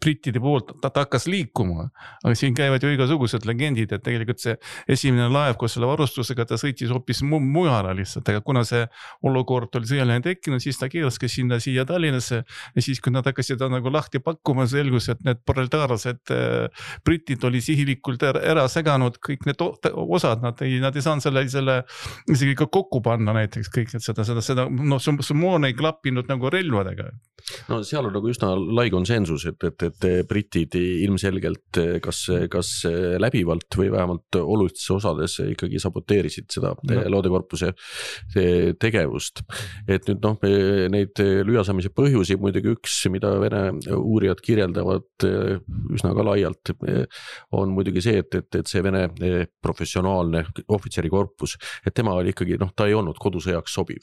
brittide poolt, ta hakkas liikuma, aga siin käivad ju igasugused legendid, et tegelikult see esimene laev koos selle varustusega, ta sõitis hoopis mujale lihtsalt, aga kuna see olukord oli sõjaline tekkinud, siis ta keelaski siia Tallinnasse ja siis, kui nad hakkasid nagu lahti pakkuma, selgus, et need proletaarsed britid oli sihilikult ära seganud, kõik need osad, nad ei saanud selle isegi ka kokku panna näiteks kõik, et seda moon ei klappinud nagu relvadega. No seal on nagu üsna lai konsensus, et britid ilmselgelt kas läbivalt või vähemalt olulistes osades ikkagi saboteerisid seda loodekorpuse tegevust. Et nüüd neid lüüasamise põhjusi muidugi üks, mida Vene uurijad kirjeldavad üsna ka laialt, on muidugi see, et see Vene professionaalne ohvitserikorpus, et tema oli ikkagi, ta ei olnud kodusõjaks sobiv.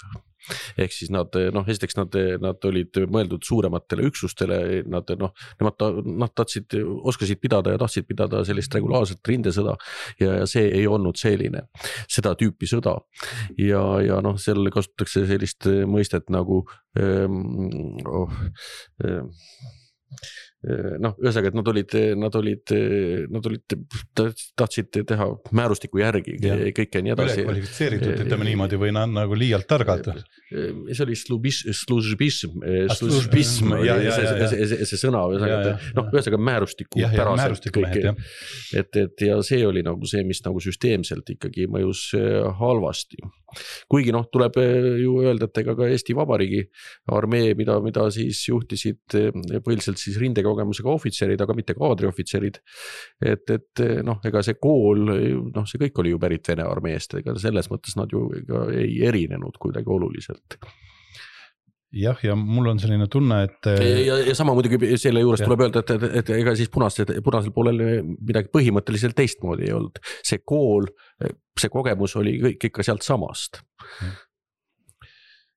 Ehk siis esiteks nad olid mõeldud suurematele üksustele, nad oskasid pidada ja tahtsid pidada sellist regulaarset rindesõda ja see ei olnud selline, seda tüüpi sõda. Ja seal kasutatakse sellist mõistet nagu ühesõnaga, et nad tahtsid teha määrustiku järgi kõike nii edasi. Ülekvalifitseeritud, ütleme niimoodi, või nagu liialt targad. See oli službism, see sõna, ühesõnaga määrustiku päraselt kõik. Ja see oli nagu see, mis nagu süsteemselt ikkagi mõjus halvasti. Kuigi tuleb ju öelda, et ega ka Eesti Vabariigi armee, mida siis juhtisid põhiliselt siis rindekogemusega ohvitserid, aga mitte kaadriohvitserid, et ega see kool, see kõik oli ju pärit Vene armeest, ega selles mõttes nad ju ei erinenud kuidagi oluliselt. Jah, ja mul on selline tunne, et ja sama muidugi selle juures tuleb öelda, et ega siis punasel poolel midagi põhimõtteliselt teistmoodi ei olnud. See kool, see kogemus oli kõik ikka sealt samast.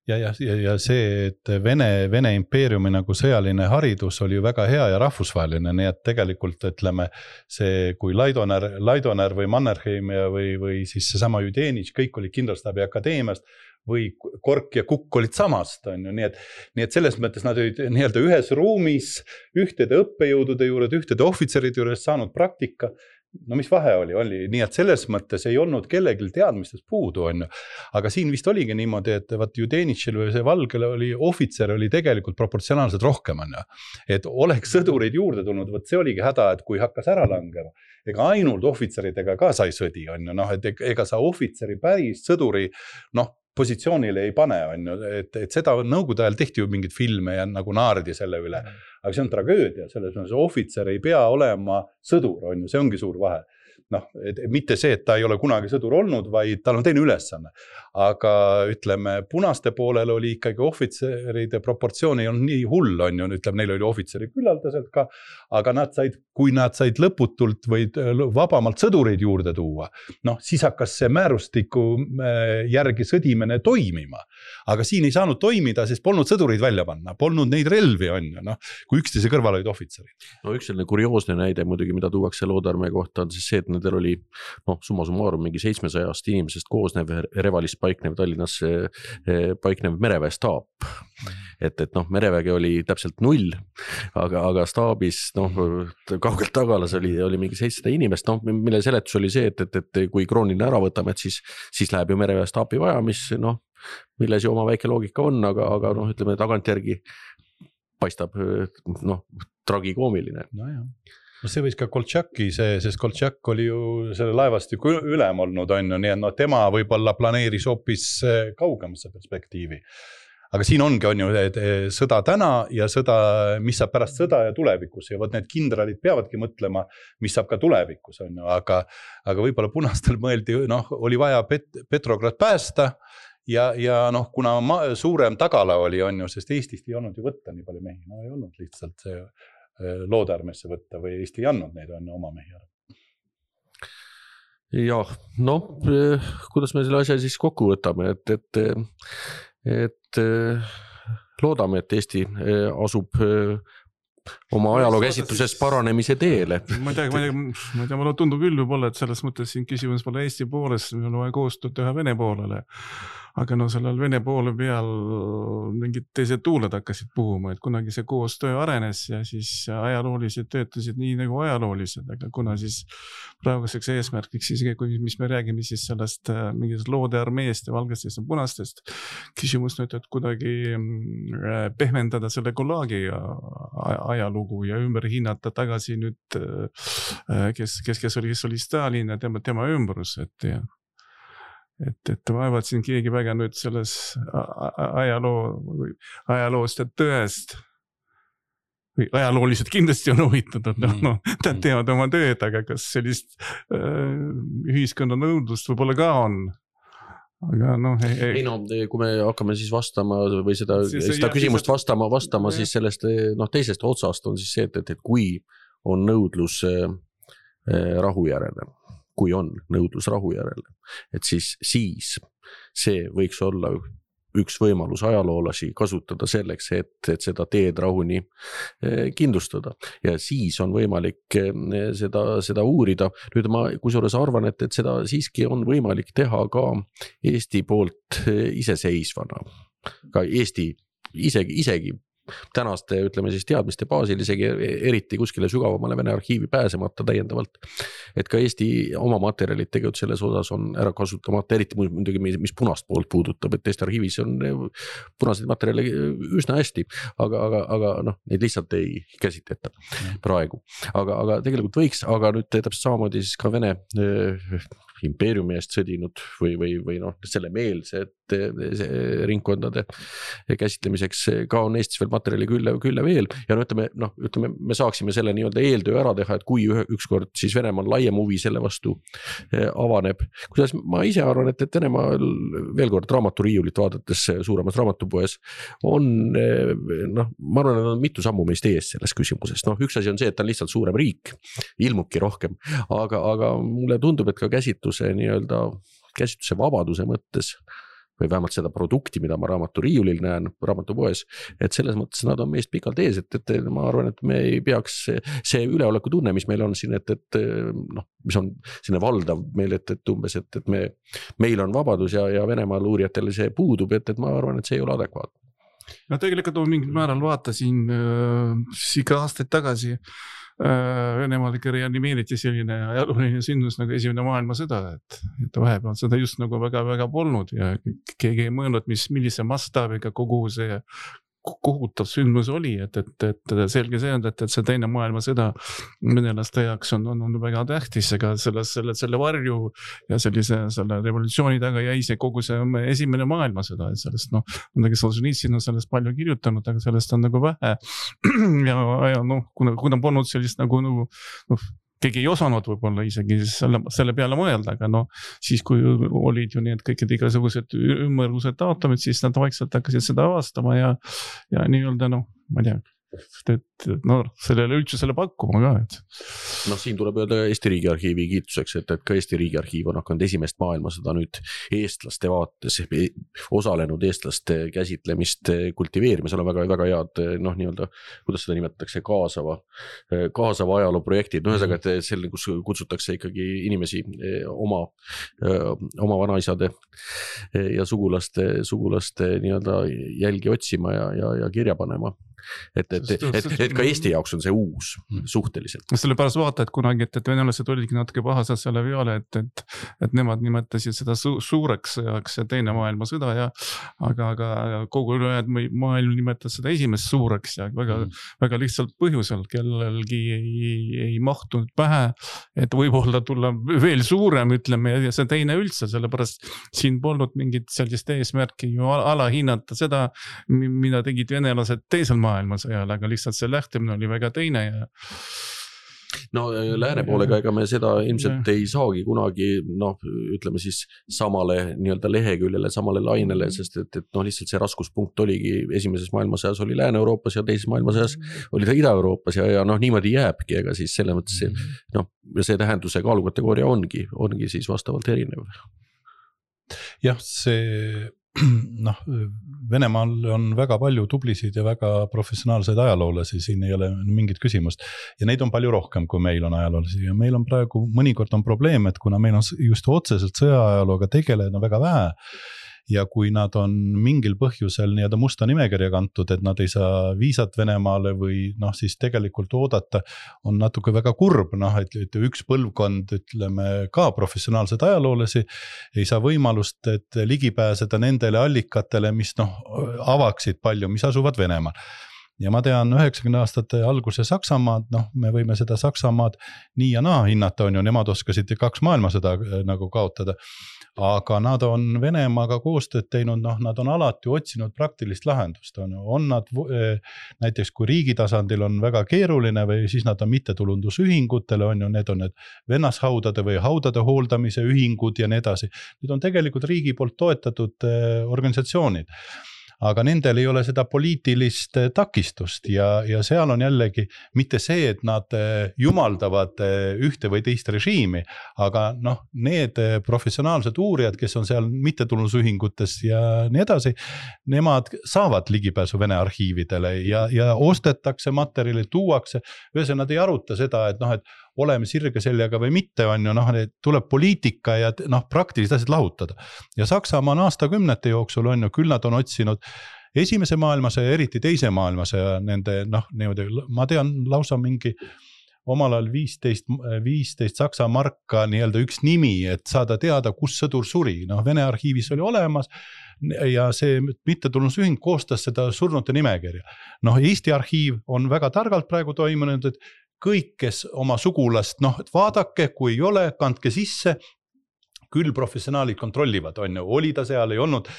Ja see, et Vene impeeriumi nagu sõjaline haridus oli ju väga hea ja rahvusvaheline, nii et tegelikult ütleme see, kui Laidoner või Mannerheim või siis seesama Judenitš, kõik oli Kindralstaabi akadeemiast, või kork ja kukk olid samast, on ju, nii et selles mõttes nad olid nii-öelda ühes ruumis, ühtede õppejõudude juures, ühtede ohvitseride juures saanud praktika. No mis vahe oli, nii et selles mõttes ei olnud kellelgi teadmistest puudu, on ju. Aga siin vist oligi niimoodi, et vaat Judenitšil või see Valgele oli, ohvitser oli tegelikult proportsionaalselt rohkem, on ju. Et oleks sõdureid juurde tulnud, võt see oligi häda, et kui hakkas ära langema, ega ainult ohvitseridega ka sai sõdi, on ju, noh, et ega sa ohvitseri päris sõduri, noh, positsioonile ei pane, on ju, et seda nõukogude ajal tehti ju mingid filme ja nagu naardi selle üle. Aga see on tragöödia, selles mõttes ohvitser ei pea olema sõdur, on ju, see ongi suur vahe. Noh, mitte see, et ta ei ole kunagi sõdur olnud, vaid tal on teine ülesanne. Aga ütleme, punaste poolel oli ikkagi ohvitseride proportsioon ei olnud nii hull, on ju, ütleme, neil oli ohvitseri küllaldaselt ka, aga kui nad said lõputult või vabamalt sõdureid juurde tuua, noh, siis hakkas see määrustiku järgi sõdimine toimima. Aga siin ei saanud toimida, sest polnud sõdureid välja panna, polnud neid relvi, on ju, noh, kui üksteise kõrval olid ohvitserid. No üks selline kurioosne näide muidugi, mida tuuakse Loodarmäe kohta, on siis see, et nendel oli summa summarum mingi 700 inimesest koosnev Revalis paiknev Tallinnas paiknev mereväestaap. Et merevägi oli täpselt 0, aga staabis kaugelt tagalas oli mingi 700 inimest, mille seletus oli see, et kui krooniline ära võtame, et siis läheb ju mereväestaapi vaja, milles ju oma väike loogika on, aga ütleme tagantjärgi paistab tragikoomiline. No jah. No see võis ka Koltšaki, sest Koltšak oli ju selle laevastiku ülem olnud, on ju, nii et tema võib-olla planeeris hoopis kaugemasse perspektiivi. Aga siin ongi, on ju, sõda täna ja sõda, mis saab pärast sõda ja tulevikus ja võt need kindralid peavadki mõtlema, mis saab ka tulevikus, on ju, aga võib-olla punastel mõeldi, oli vaja Petrograd päästa ja kuna suurem tagala oli, on ju, sest Eestist ei olnud ju võtta nii palju mehi, ei olnud lihtsalt see Loodarmesse võtta või Eesti ei andnud neid on oma mehi ära. Jah, kuidas me selle asja siis kokku võtame, et loodame, et Eesti asub oma ajaloo käsitluses paranemise teele. Ma ei tea, mulle tundub küll võib-olla, et selles mõttes siin küsimus pole Eesti poolest, meil on vaja koostööd teha Vene poolele. Aga sellel Vene poole peal mingid teised tuuled hakkasid puhuma, et kunagi see koostöö arenes ja siis ajaloolised töötasid nii nagu ajaloolised, aga kuna siis praeguseks eesmärkiks siis, mis me räägime siis sellest mingist loode armeest ja valgestest ja punastest, küsimus nüüd, et kuidagi pehmendada selle Gulagi ajalugu ja ümber hinnata tagasi nüüd, kes oli Stalin ja tema ümbrus, et vaevad siin keegi väga nüüd selles ajaloost ja tõest või ajalooliselt kindlasti on huvitatud, nad teevad oma tööd, aga kas sellist ühiskonna nõudlust võib-olla ka on? Aga kui me hakkame siis vastama või seda küsimust vastama siis sellest teisest otsast on siis see, et kui on nõudlus rahu järele, et siis see võiks olla üks võimalus ajaloolasi kasutada selleks, et seda teed rahuni kindlustada ja siis on võimalik seda uurida. Nüüd ma kusjuures arvan, et seda siiski on võimalik teha ka Eesti poolt iseseisvana, ka Eesti isegi tänaste, ütleme siis teadmiste baasil, isegi eriti kuskile sügavamale Vene arhiivi pääsemata täiendavalt, et ka Eesti oma materjalid tegelikult selles osas on ära kasutamata, eriti muidugi, mis punast poolt puudutab, et Eesti arhiivis on punaseid materjale üsna hästi, aga neid lihtsalt ei käsitleta praegu. Aga tegelikult võiks, aga nüüd täpselt samamoodi siis ka Vene impeeriumi eest sõdinud või selle meelsed ringkondade käsitlemiseks ka on Eestis veel materjali külle veel ja ütleme, me saaksime selle nii-öelda eeltöö ära teha, et kui ükskord siis Venemaal laiem huvi selle vastu avaneb. Kuidas ma ise arvan, et Venemaal veel kord raamaturiiulit vaadates suuremas raamatupoes on, ma arvan, et on mitu sammu meist ees selles küsimuses. Üks asi on see, et ta on lihtsalt suurem riik, ilmubki rohkem, aga mulle tundub, et ka käsitluse vabaduse mõttes või vähemalt seda produkti, mida ma raamatoriiulil näen raamatupoes, et selles mõttes nad on meist pikalt ees, et ma arvan, et me ei peaks see üleoleku tunne, mis meil on siin, et noh, mis on selline valdav meil, et umbes, et meil on vabadus ja Venemaal uurijatele see puudub, et ma arvan, et see ei ole adekvaatne. No tegelikult on mingil määral vaatasin ikka aastaid tagasi Venemaal ikka reanimeeriti selline ajalooline sündmus nagu esimene maailmasõda, et vahepeal seda just nagu väga polnud ja keegi ei mõelnud, millise mastaabiga kogu see kohutav sündmus oli, et selge see on, et see teine maailmasõda venelaste jaoks on väga tähtis, aga selle varju ja selle revolutsiooni taga jäi see kogu see esimene maailmasõda, et sellest midagi Solženitsyn on sellest palju kirjutanud, aga sellest on nagu vähe ja kuna polnud sellist nagu keegi ei osanud võib-olla isegi selle peale mõelda, aga siis kui olid ju need kõikid igasugused ümmargused taotumid, siis nad vaikselt hakkasid seda avastama ja nii-öelda ma ei tea, sellele üldsusele pakkuma ka, et. Siin tuleb öelda Eesti Riigiarhiivi kiituseks, et ka Eesti Riigiarhiiv on hakanud esimest maailmasõda nüüd eestlaste vaates, osalenud eestlaste käsitlemist kultiveerima, seal on väga head, nii-öelda, kuidas seda nimetatakse, kaasava ajaloo projektid, ühesõnaga, et selle, kus kutsutakse ikkagi inimesi oma vanaisade ja sugulaste nii-öelda jälgi otsima ja kirja panema. Et ka Eesti jaoks on see uus suhteliselt. Selle pärast vaata, et kunagi, et venelased olidki natuke pahased selle peale, et nemad nimetasid seda suureks sõjaks ja teine maailmasõda aga kogu maailm nimetas seda esimest suureks ja väga lihtsalt põhjusel, kellelgi ei mahtunud pähe, et võib-olla tulla veel suurem, ütleme, ja see teine üldse, sellepärast siin polnud mingit sellist eesmärki ju alahinnata seda, mida tegid venelased teisel maailmasõjal, aga lihtsalt see lähtemine oli väga teine ja lääne poolega ega me seda ilmselt ei saagi kunagi, ütleme siis samale nii-öelda leheküljele, samale lainele, sest et lihtsalt see raskuspunkt oligi esimeses maailmasõjas oli Lääne-Euroopas ja teises maailmasõjas oli ta Ida-Euroopas ja niimoodi jääbki, ega siis selle mõttes see tähenduse kaalukategooria ongi siis vastavalt erinev. Jah, see Venemaal on väga palju tublisid ja väga professionaalseid ajaloolasi, siin ei ole mingit küsimust ja neid on palju rohkem, kui meil on ajaloolasi ja meil on praegu mõnikord on probleem, et kuna meil on just otseselt sõjaajalooga tegelenud väga vähe ja kui nad on mingil põhjusel nii-öelda musta nimekirja kantud, et nad ei saa viisat Venemaale või siis tegelikult oodata, on natuke väga kurb, et üks põlvkond, ütleme ka professionaalsed ajaloolasi, ei saa võimalust, et ligipääseda nendele allikatele, mis avaksid palju, mis asuvad Venemaal. Ja ma tean 90 aastate alguse Saksamaad, me võime seda Saksamaad nii ja naa hinnata, on ju, nemad oskasid 2 maailmasõda nagu kaotada, aga nad on Venemaaga koostööd teinud, nad on alati otsinud praktilist lahendust, on nad näiteks kui riigi tasandil on väga keeruline või siis nad on mittetulundusühingutele, on ju, need on need vennashaudade või haudade hooldamise ühingud ja nii edasi, need on tegelikult riigi poolt toetatud organisatsioonid. Aga nendel ei ole seda poliitilist takistust ja seal on jällegi mitte see, et nad jumaldavad ühte või teist režiimi, aga need professionaalsed uurijad, kes on seal mittetulundusühingutes ja nii edasi, nemad saavad ligipääsu Vene arhiividele ja ostetakse materjali, tuuakse, ühesõnaga nad ei aruta seda, et oleme sirge seljaga või mitte, on ju, tuleb poliitika ja praktilised asjad lahutada. Ja Saksamaa on aastakümnete jooksul, on ju, küll nad on otsinud esimese maailmasõja, eriti teise maailmasõja, nende, niimoodi, ma tean lausa mingi omal ajal 15 Saksa marka nii-öelda üks nimi, et saada teada, kus sõdur suri. Vene arhiivis oli olemas ja see mittetulundusühing koostas seda surnute nimekirja. Eesti arhiiv on väga targalt praegu toimunud, et kõik, kes oma sugulast, vaadake, kui ei ole, kandke sisse, küll professionaalid kontrollivad, on ju, oli ta seal, ei olnud,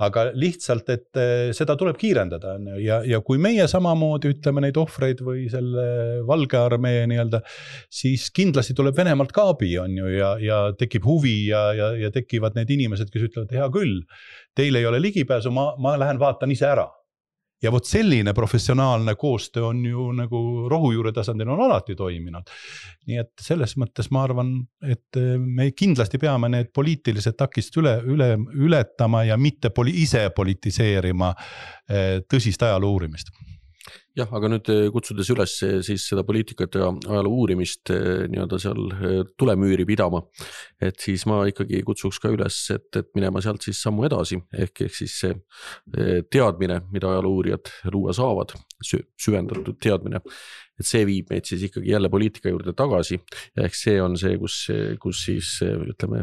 aga lihtsalt, et seda tuleb kiirendada ja kui meie samamoodi ütleme neid ohvreid või selle Valge armee nii-öelda, siis kindlasti tuleb Venemaalt ka abi, on ju, ja tekib huvi ja tekivad need inimesed, kes ütlevad, hea küll, teil ei ole ligipääsu, ma lähen vaatan ise ära. ja vot selline professionaalne koostöö on ju nagu rohujuure tasandil on alati toiminud. Nii et selles mõttes ma arvan, et me kindlasti peame need poliitilised takist ületama ja mitte ise politiseerima tõsist ajaloo uurimist. Jah, aga nüüd kutsudes üles siis seda poliitikat ja ajaloo uurimist nii-öelda seal tulemüüri pidama, et siis ma ikkagi kutsuks ka üles, et minema sealt siis sammu edasi, ehk siis see teadmine, mida ajaloo uurijad luua saavad, süvendatud teadmine, et see viib meid siis ikkagi jälle poliitika juurde tagasi, ehk see on see, kus siis ütleme,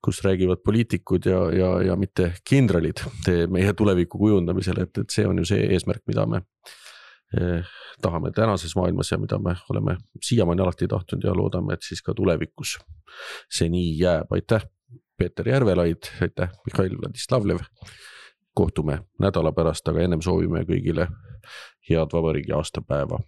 kus räägivad poliitikud ja mitte kindralid meie tuleviku kujundamisel, et see on ju see eesmärk, mida me tahame tänases maailmas ja mida me oleme siiamaani alati tahtnud ja loodame, et siis ka tulevikus see nii jääb. Aitäh, Peeter Järvelaid, aitäh, Mihhail Vladislavlev. Kohtume nädala pärast, aga ennem soovime kõigile head vabariigi aastapäeva.